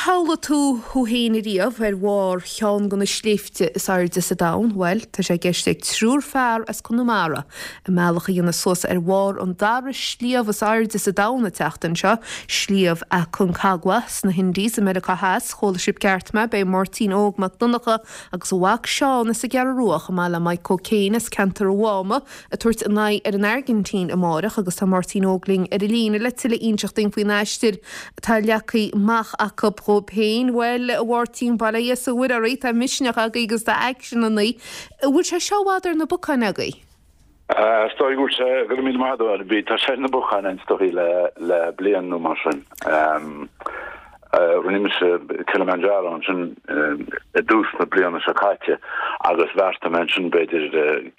shamhlaigh tú thú féin ariamh ar bharr cheann de na sléibhte is airde sa domhan? Bhuel, tá sé i gceist ag triúr fear as Conamara a mbealach a dhéanamh suas ar bharr an dara sliabh is airde sa domhan an tseachtain seo, Sliabh Aconcagua sna hIndies i Meiriceá Theas. Chuala sibh ceart mé, beidh Máirtín Óg Mac Donncha agus a mhac Seán as an gCeathrú Rua chomh maith le Maidhc Ó Céin as ceantar an Mháma ag tabhairt a n-aghaidh ar an Airgintín amáireach agus tá Máirtín Óg linn ar an líne le tuilleadh a inseacht dúinn faoin aistear atá leagtha amach acu dhóibh féin. Bhuel, a Mháirtín, bail ó Dhia is ó Mhuire oraibh, tá misneach agaibh agus tá aicsean ionaibh. An bhfuil sé seo i bhfad ar na bacáin agaibh? Is dóigh go bhfuil sé, go raibh míle maith agat, bhí, tá sé ar na bacáin is dóigh le, le bliain nó mar sin. Rinne mise Kilimanjaro ansin i dtús na bliana seo caite agus bheartaigh mé ansin b'fhéidir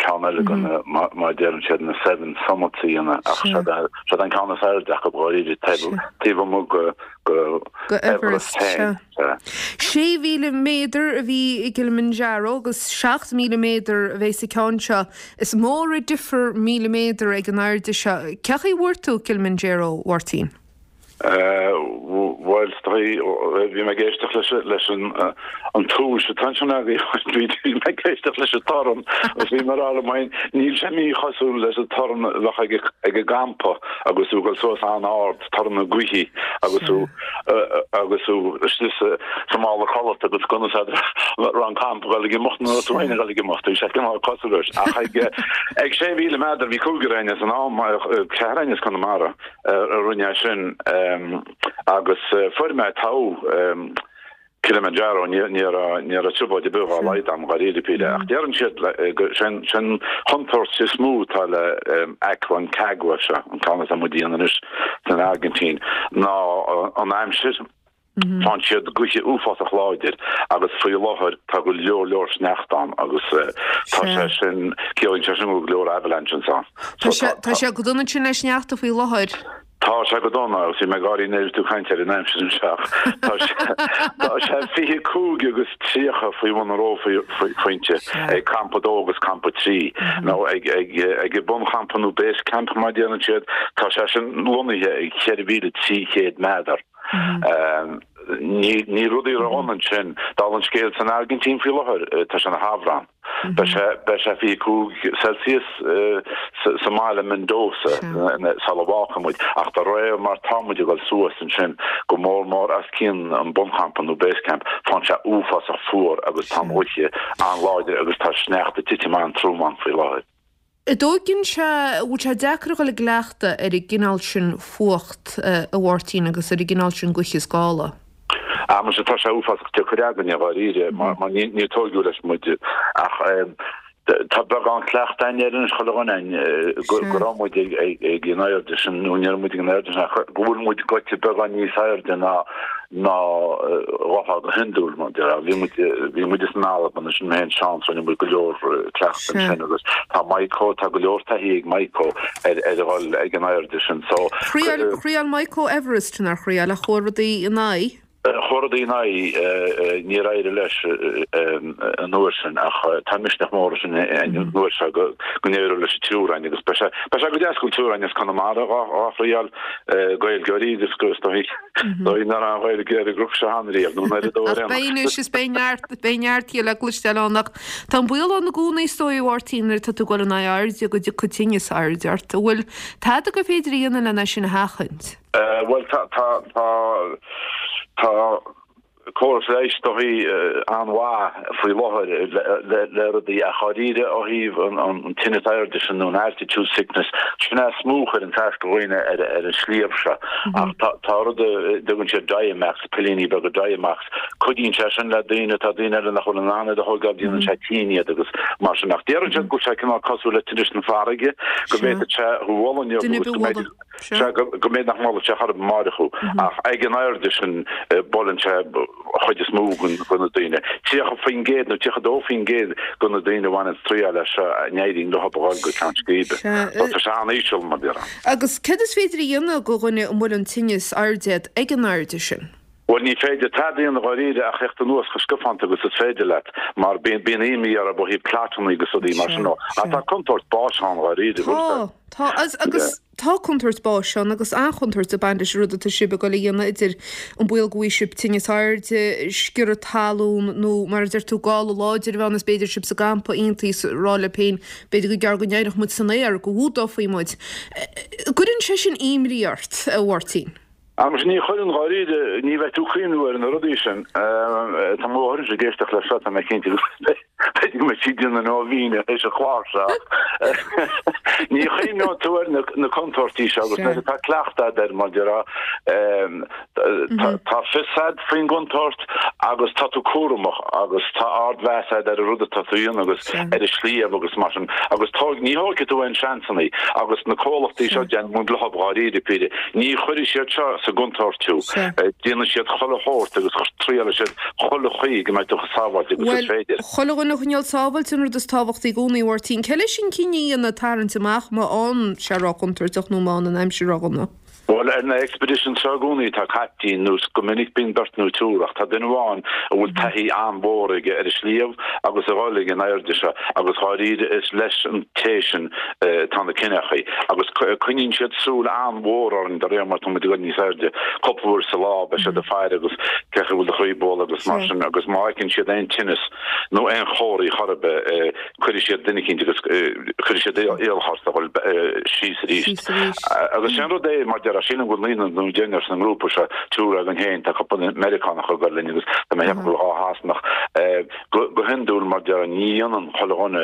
ceann eile de na, mar a deireann siad, na Seven Summits a dhéanamh ach seod an ceann is airde acu dháiríre taobh amuigh de Everest féin. 6,000 méadar a bhí i gKilimanjaro agus 7,000 méadar a bheidh sa ceann seo. Is mór an difear 1,000 méadar ag an airde seo. Cén chaoi a bhfuair tú Kilimanjaro, a Mháirtín? Bhuel, is dóigh, bhí mé ag éisteacht leis leis an an túis atá ansin agaibh, bhí mé ag éisteacht leis an torann agus bhí mé ag rá liom féin, níl sé míchosúil leis an torann a bheadh ag ag an gcampa agus tú ag dul suas an-ard, torann na gaoithe agus tú agus tú istigh sa sa mála codlata agus conas a raibh an campa ag dul ag imeacht nó tú féin ag dul ag imeacht, bhí sé cineál cosúil leis. Ach ag ag 6,000 méadar bhí cúigear againn san am, ceathrar againn as Conamara. a rinne é sin agus fuair mé togha Kilimanjaro, ní raibh trioblóid ar bith dá laghad agam dháiríre píre ach deireann siad go sin an chontúirt is mó atá le Aconcagua seo, an ceann atá muid a dhéanamh anois san Airgintín, ná an aimsir. Faigheann siad gaoithe uafásach láidir agus faoi láthair tá go leor leor sneachta ann agus tá sé sin, ciallaíonn sé sin go bhfuil go leor avalanches ann. Tá sé, tá sé go dona ansin le sneachta faoi láthair. Tá sé go dona agus bhí mé ag gáirí nuair a bhí tú ag caint ar an aimsir anseo ach tá sé, tá sé 25 agus 30 faoi bhun an reophointe ag Campa 2 agus Campa 3 nó ag, ag, ag an bunchampa nó base camp mar a deireann siad, tá sé sin lonnaithe ag 4,300 méadar. Níl rudaí ródhona ansin. Dála an scéil san Airgintín faoi láthair, tá sé ina shamhradh. Beidh sé beidh sé 25 Celsius sa mbaile Mendoza sula bhfágfaidh muid. Ach de réir mar tá muid ag dul suas ansin, go mór mór os cionn an bunchampa nó base camp, faigheann sé uafásach fuar agus tá an ghaoth an-láidir agus tá sneachta ag titim an-trom ann faoi láthair. An dtóigeann sé, an bhfuil sé deacair a dhul i gcleachtadh ar an gcineál sin fuacht, a Mháirtín, agus ar an gcineál sin gaoithe is gála? Ah, muise, tá sé uafásach deacair againne, dháiríre, mar níor tóigeadh leis muid. Ach tá beagán cleachta againn air anois, chuile dhuine againn, go raibh muid ag an airde sin, nó ní raibh muid ag an airde sin, ach go bhfuil muid goite beagán níos airde ná ná a bheifeá go hiondúil, mar a déarfá. Bhí muid, bhí muid in Albain, ansin mé féin Seán, so rinne muid go leor cleachta ansin agus tá Maidhcó, tá go leor taithí ag Maidhcó ar, ar a dhul ag an airde sin, so. Thriail, thriail Maidhcó Everest, nár thriail, ach chuaigh rudaí ina aghaidh? Chuaigh rudaí ina aghaidh, níor éirigh leis an uair sin ach tá misneach mór leis an uair seo go, go n-éireoidh leis an triúr againn agus beidh sé, beidh sé go deas go bhfuil triúr againn as Conamara dhá, dhá thriail, Gaeilgeoirí agus go, is dóigh. Dóigh nach raibh an Ghaeilge ar an gcnoc seo cheana riamh, nó an oiread dó ar aon Ach beidh anois is beidh neart, beidh neart di le cloisteáil ann ach tá an baol ann i gcónaí is dóigh a Mháirtín nuair atá tú ag dul in aghaidh airde go dtiocfaidh tinneas airde ort. An bhfuil tada gur féidir a dhéanamh lena sin a sheachaint? Bhuel tá, tá, tá, tá córas leighis is dóigh an-mhaith faoi láthair le rudaí ach dháiríre ó thaobh an tinneas airde sin nó an altitude sickness, sin é is mó a chuireann as do dhaoine ar an sliabh seo. Ach tá rud a dtugann siad Diamox, pillíní beaga Diamox, cuidíonn sé sin le daoine, tá daoine eile nach bhfuil in ann iad a thógáil, déanann sé tinn iad agus mar sin. Ach deireann siad go bhfuil sé cineál cosúil le tinneas na farraige, go bhféadfadh sé thú a bhualadh inniu agus go mbeidh Sea, go mb'fhéidir nach mbuailfeadh sé chor ar bith amáireach thú, ach ag an airde sin buaileann sé an chuid is mó de na daoine. 30% nó 32% de na daoine a bhaineann triail as seo a n-éiríonn leo a dhul go ceann scríbe. So tá sé an-íseal, mar déarfá. Agus céard is féidir a dhéanamh do dhuine a mbuaileann tinneas airde iad ag an airde sin? Bhuel, ní féidir tada a dhéanamh dháiríre ach theacht anuas chomh scafánta agus is féidir leat, mar bíonn imní orthu ó thaobh clotanna agus rudaí mar sin. Ach tá contúirt báis ann dháiríre. Tá, tá. Agus. Tá contúirt báis ann agus an-chontúirt ag baint leis an rud atá sibh ag dul a dhéanamh, idir an baol go bhfaighidh sibh tinneas airde, sciorradh talún nó, mar a deir tú, gála láidir a bheith ann is b'fhéidir sibh sa gcampa iontaoibh is rá libh féin b'fhéidir gur gearr go n-éireodh muid san aer, go bhfuadófaí muid. Gcuireann sé sin imní ort, a Mháirtín? Agus ní chuireann, dháiríre, ní bheidh tú ag cuimhniú ar na rudaí sin. Tá mo mháthair ag éisteacht leis seo, tá mé cinnte go b'fhéidir go mbeidh sí ag déanamh nóibhíne théis an chláir seo. Ní chuimhneoidh tú ar na contúirtí seo agus nuair atá cleachtadh agat air, mar déarfá, tá fios agat faoin gcontúirt agus tá tú cúramach agus tá ardmheas agat ar an rud atá tú a dhéanamh agus ar an sliabh agus mar sin agus ní thógfaidh tú aon seansanna agus na comhlachtaí seo déanann muid leo dháiríre píre. Ní chuirfidh siad seo sa gcontúirt thú. Déanfaidh siad chuile shórt agus triailfidh siad chuile chaoi go mbeidh tú chomh sábháilte agus is féidir. Bhuel, chuile dhuine a choinneáil sábháilte an rud is tábhachtaí i gcónaí, a Mháirtín. Cé leis an cinneadh a dhéanamh tarraingt amach má fhanann sé róchontúirteach nó má fhanann an aimsir ródhona? Bhuel, ar na expeditions seo i gcónaí tá caiptín nó go minic bíonn beirt nó triúr ach tá duine amháin a bhfuil taithí an-mhór aige ar an sliabh agus a dhul ag an airde seo agus dháiríre is leis an té sin Tá na cinneachaí, agus coinníonn siad súil an-mhór orainn de réir mar tá muid ag dul níos airde. Cúpla uair sa lá beidh siad ag faire agus cén chaoi a bhfuil do chroí ag bualadh agus mar sin agus má fheiceann siad aon tinneas nó aon chomharthaí chor ar bith cuirfidh siad duine eicínt agus cuirfidh siad iallach ort a dhul síos arís. Agus sin rud é mar déarfá, sílim go bhfuil naonúr nó deichniúr san ngrúpa seo, triúr againn féin, tá cúpla Meiriceánach ag dul linn agus tá mé ag ceapadh go bhfuil dhá Shasanach. Go hiondúil, mar déarfá, ní dhéanann chuile dhuine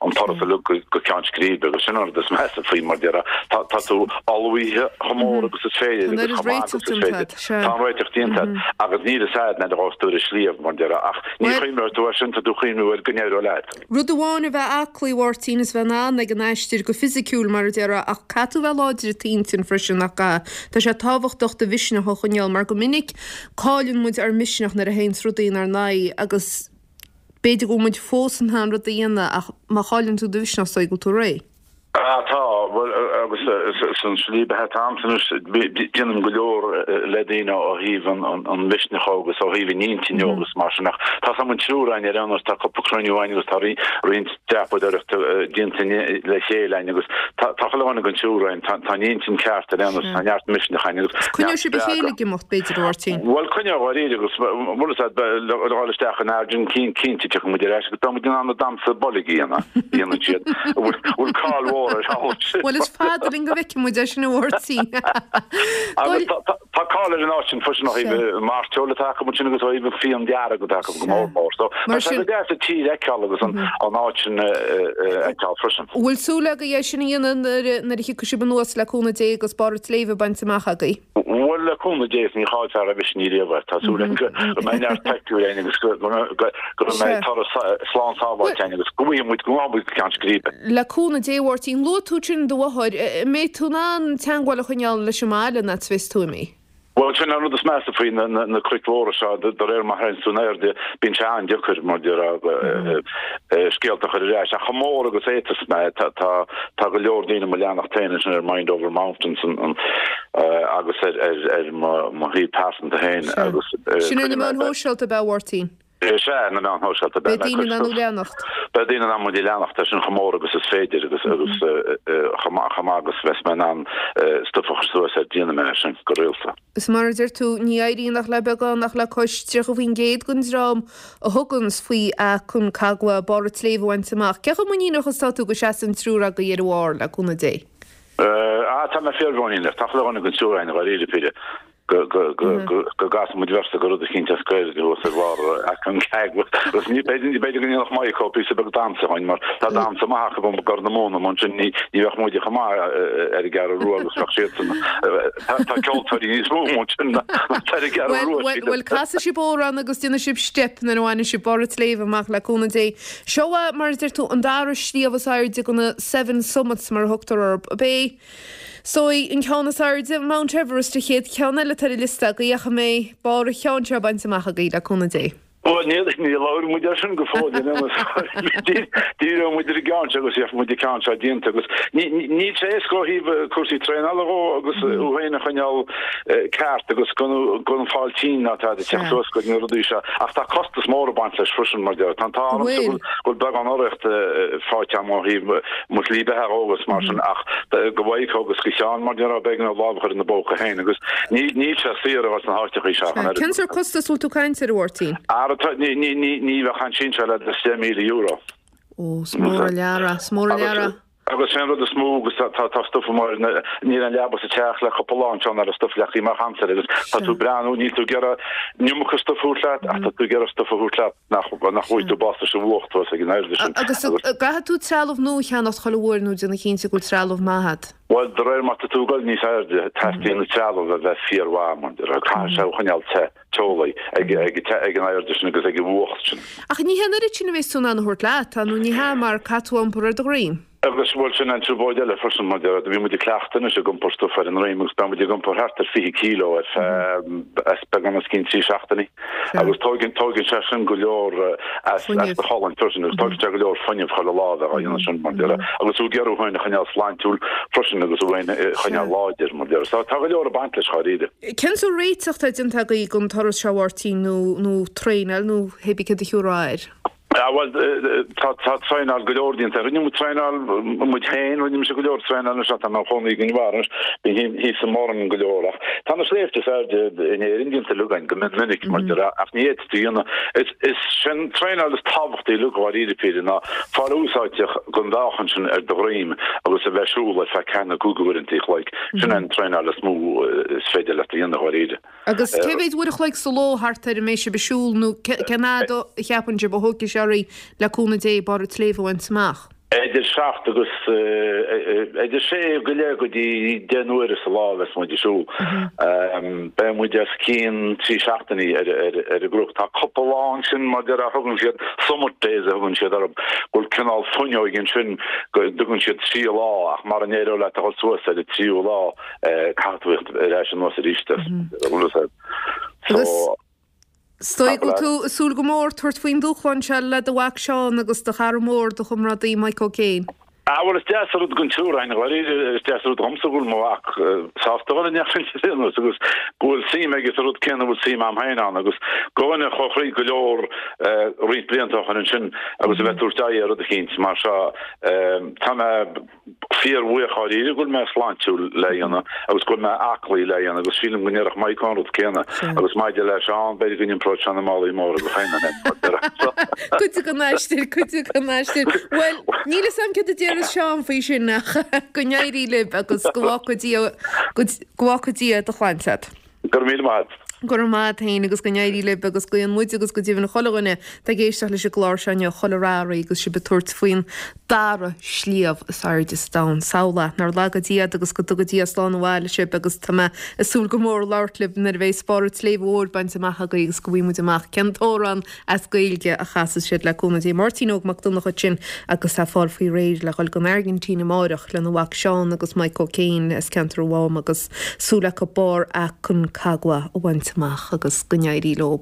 an turas uilig go ceann scríbe agus sin an rud is measa faoi, mar déarfá. Tá tú ullmhaithe chomh mór agus is féidir agus chomh maith agus is féidir. Tá an réiteach déanta agat agus níl fhios agat nuair a ghabhfas tú ar an sliabh, mar déarfá, ach ní chuimhneoidh tú air sin, tá tú ag cuimhniú ar go n-éireoidh leat. Rud amháin a bheith aclaí, a Mháirtín, is bheith in ann ag an aistear go fisiciúil, mar a déarfá, ach caithfidh tú bheith láidir i d'intinn freisin, nach gcaithfidh? Tá sé tábhachtach do mhisneach a choinneáil mar go minic Cailleann muid ár misneach nuair a théanns rudaí inár n-aghaidh agus b'fhéidir go bhfuil muid fós in ann rud a dhéanamh ach má chailleann tú do mhisneach is dóigh go bhfuil tú réidh. Ah tá, bhuel agus san slí beatha atá a'msa anois déanaim go leor le daoine ó thaobh an mhisnigh agus ó thaobh an intinne agus mar sin ach tá 's a'm an triúr againn ar aon nós tá cúpla cruinniú againn agus tá roinnt dreapadóireachta déanta le chéile againn agus tá chuile dhuine den triúr againn, tá an intinn ceart ar aon nós, tá neart misneach againn agus neart Coinneoidh sibh a chéile ag imeacht, b'fhéidir, a Mháirtín? Bhuel, coinneoidh dháiríre agus bhfuil fhios a'd, le dhul isteach in Airgin cinnte tiocfaidh muid ar ais agus beidh muid in ann an damhsa boilg a dhéanamh, a dhéanann siad, a bhfuil cáil mhór air thall. Bhuel, is fada linn go bhfeicfidh muid é sin, a Mháirtín. Agus tá cáil ar an áit sin freisin ó thaobh an mairteoil atá acu ansin agus ó thaobh an fíon dearg atá acu go mór mór. So tá sé go deas an tír a fheiceáil agus an áit sin a fheiceáil freisin. Bhfuil súil agaibh é sin a dhéanamh nuair a thiocfaidh sibh anuas le cúnamh Dé agus barr an tsléibhe bainte amach agaibh? Bhuel le cúnamh Dé is ní chaillfear roimhe sin riamh é. Tá súil agam go mbeidh neart pictiúr againn agus go mbeidh turas slán sábháilte againn agus go bhfaighidh muid go ngabhfaidh muid go ceann scríbe. Le cúnamh Dé, a Mháirtín. Luaigh tú ansin do mháthair. An mbeidh tú in ann teagmháil a choinneáil leis an mbaile an fhad is a bheas tú imithe? Bhuel, sin an rud is measa faoi na cnoic mhóra seo, de réir mar a théanns tú in airde, bíonn sé an-deacair, mar déarfá, scéalta a chur ar ais. Ach chomh mór agus a fhéadfas mé, tá go leor daoine mo leanacht féin ansin ar Mind Over Mountains agus ar mo shuíomh pearsanta féin agus. Sin ar na meáin shóisialta, ab ea, a Mháirtín? Is ea, na meáin shóisialta. Beidh daoine in ann thú a leanacht. Beidh daoine in ann muid a leanacht, é sin chomh mór agus is féidir agus agus chomh maith chomh maith agus bheas mé in ann stuif a chur suas air, déanfaidh mé é sin go rialta. Is mar a deir tú, ní éiríonn ach le beagán, ach le cois 30% den dream a thuganns faoi Aconcagua barr an tsléibhe a bhaint amach. Cé chomh muiníneach is atá tú go seasfaidh an triúr agaibh ar an bharr, le cúnamh Dé? Ah, tá mé fíormhuiníneach. Tá chuile dhuine den triúr againn, dháiríre píre. go gcasfaidh muid véarsa de rud eicínt as Gaeilge thuas ar bharr Aconcagua agus ní b'fhéidir go ndéanfadh Maidhc píosa beag damhsa dhúinn mar tá damhsa maith acu i gCorr na Móna mar sin ní bheadh muide chomh maith ar an gCeathrú Rua agus bheadh siadsan tá ceoltóirí níos mó ansin ná ar an gCeathrú Rua sílim. Bhuel casfaidh sibh amhrán agus déanfaidh sibh steip nuair a bhainfidh sibh barr an tsléibhe amach le cúnamh Dé. Seo mar a deir tú an dara sliabh is airde de na Seven Summits mar a thugtar orthu. Ab é So, an ceann is airde, Mount Everest, an chéad cheann eile atá ar an liosta agaibh ach an mbeidh barr an cheann seo bainte amach agaibh, le cúnamh Dé? Bhuel, níl, níor labhair muid air sin go fóill, you know, díreoidh muid ar an gceann seo agus gheobhaidh muid an ceann seo déanta agus níl sé éasca ó thaobh cúrsaí traenála dhó agus thú féin a choinneáil ceart agus gan gan fáil tinn ná tada ag teacht suas go na rudaí seo ach tá costas mór ag baint leis freisin mar deir. Tá an t-ádh ormsa go bhfuil beagán urraíocht faighte agam ó thaobh mo shlí beatha dhó agus mar sin ach do Mhaidhc agus do Sheán mar déarfá b'éigean dóibh lámh a chur ina bpóca féin agus níl sé saor a dhul sna háiteachaí seo ach an oiread. Cén sórt costas a bhfuil tú ag caint air, a Mháirtín? Ara tá, ní, ní, ní, ní bheadh an sin seo le €10,000. Ó, is mór an lear é, is mór an lear é. Agus sé an rud is mó agus tá, tá, tá stuif amuigh, níl an leaba sa teach le cúpla lá anseo ná raibh stuif leagtha amach agamsa agus tá tú ag breathnú, níl tú ag iarraidh an iomarca stuif a thabhairt leat ach tá tú ag iarraidh stuif a thabhairt leat nach, nach bhfaighidh tú bás leis an bhfuacht thuas ag an airde sin. Agus an gcaithfidh tú trealamh nua a cheannacht chuile uair nó déanamh cinnte go bhfuil trealamh maith agat? Bhuel, de réir mar tá tú ag dul níos airde, teastaíonn an trealamh a bheith fíormhaith, mar caithfidh sé thú a choinneáil te, teolaí, ag, ag, ag an airde sin agus ag an bhfuacht sin. Ach ní hé an oiread sin a bheas tú in ann a thabhairt leat, tá, nó ní hea, mar caithfidh tú a iompar ar do dhroim. Agus, bhuel, sin an trioblóid eile freisin, mar déarfá, bhí muid ag cleachtadh anois ag iompar stuif ar an ndroim agus beidh muid ag iompar thart ar 20 kilo ar feadh, as beagán os cionn 3 seachtainí. Agus tóigeann, tóigeann sé sin go leor as, as do cholainn freisin agus tóigeann sé go leor fuinnimh chuile lá a bheith á dhéanamh sin, mar déarfá. Agus tú ag iarraidh thú féin a choinneáil sláintiúil freisin agus thú féin a choinneáil láidir, mar déarfá. So tá go leor ag baint leis, dháiríre. Cén sórt réiteach atá déanta agaibh don turas seo, a Mháirtín, nó, nó traenáil nó hé bí céard a thiúrfá air? Ah bhuel, tá tá traenáil go leor déanta. Rinne muid traenáil muid féin, rinne mise go leor traenáil anois tá mé i mo chónaí i gConamara anois, bím thíos i mBoirinn go leor ach tá na sléibhte is airde in Éirinn déanta uilig againn go mion minic mar déarfá ach ní fhéadfaí a dhéanamh. Is is sin traenáil is tábhachtaí uilig dháiríre píre ná fáil úsáideach den mheáchan sin ar do dhroim agus a bheith ag siúl ar feadh ceathair nó cúig uaireanta a chloig. Sin an traenáil is mó is féidir leat a dhéanamh dháiríre. Agus cé mhéad uair a chloig sa ló thart ar a mbeidh sibh ag siúl nó cén fhad a cheapann sibh a thógfaidh sé oraibh le cúnamh Dé barr an tsléibhe a bhaint amach? Idir seacht agus idir sé go leith go dtí 10 n-uaire sa lá a bheas muid ag siúl. Beidh muid os cionn 3 seachtainí ar an gcnoc. Tá cúpla lá ansin mar déarfá a thugann siad summit days a thugann siad orthu, go bhfuil cineál fuinneoig ansin go dtugann siad trí lá ach mara n-éireoidh leat a dhul suas ar an tríú lá Caithfidh tú theacht ar ais anuas arís Agus is dóigh go bhfuil tú ag súil go mór tabhairt faoin dúshlán seo le do mhac Seán agus do chara mór, do chomrádaí Mike O'Kane. Ah bhuel is deas an rud don triúr againn, dháiríre, is deas an rud dhomsa go bhfuil mo mhac sásta dhul in aon nós agus go bhfuil suim aige sa rud céanna a bhfuil suim a'm féin ann agus do dhuine a chuaigh thríd go leor roinnt blianta ó shin ansin agus a bheith ag tabhairt aghaidh ar rud eicínt mar seo tá mé fíorbhuíoch dháiríre go bhfuil mé sláintiúil le dhéanamh agus go bhfuil mé aclaí le dhéanamh agus sílim go ndéarfadh Mike an rud céanna agus maidir le Seán b'fhéidir go n-iompróidh sé na málaí móra dó féin Cuid den aistear, cuid den aistear. Bhuel, níl fhios a'm céard a déarfas Seán faoi sin ach go n-éirí libh agus go bhfágfaidh Dia, go bhfágfaidh Dia do shláinte agat. Go raibh míle maith agat. Go raibh maith agat féin agus go n-éirí libh agus guíonn muid agus go deimhin chuile dhuine atá ag éisteacht leis an gclár seo inniu chuile rath oraibh agus sibh ag tabhairt faoin dara sliabh is airde sa domhan. Samhlaigh é, nár laga Dia iad agus go dtuga Dia slán abhaile sibh agus tá mé ag súil go mór labhairt libh nuair a bheidh barr an tSléibhe Mhóir bainte amach agaibh agus go bhfaighidh muid amach cén t-amhrán as Gaeilge a chasas siad le cúnamh Dé. Máirtín Óg Mac Donncha ansin agus é ag fáil faoi réir le dhul don Airgintín amáireach lena mhac Seán agus Mike O'Kane as ceantar an Mhám agus súil acu barr Aconcagua a bhaint amach agus go n-éirí leo.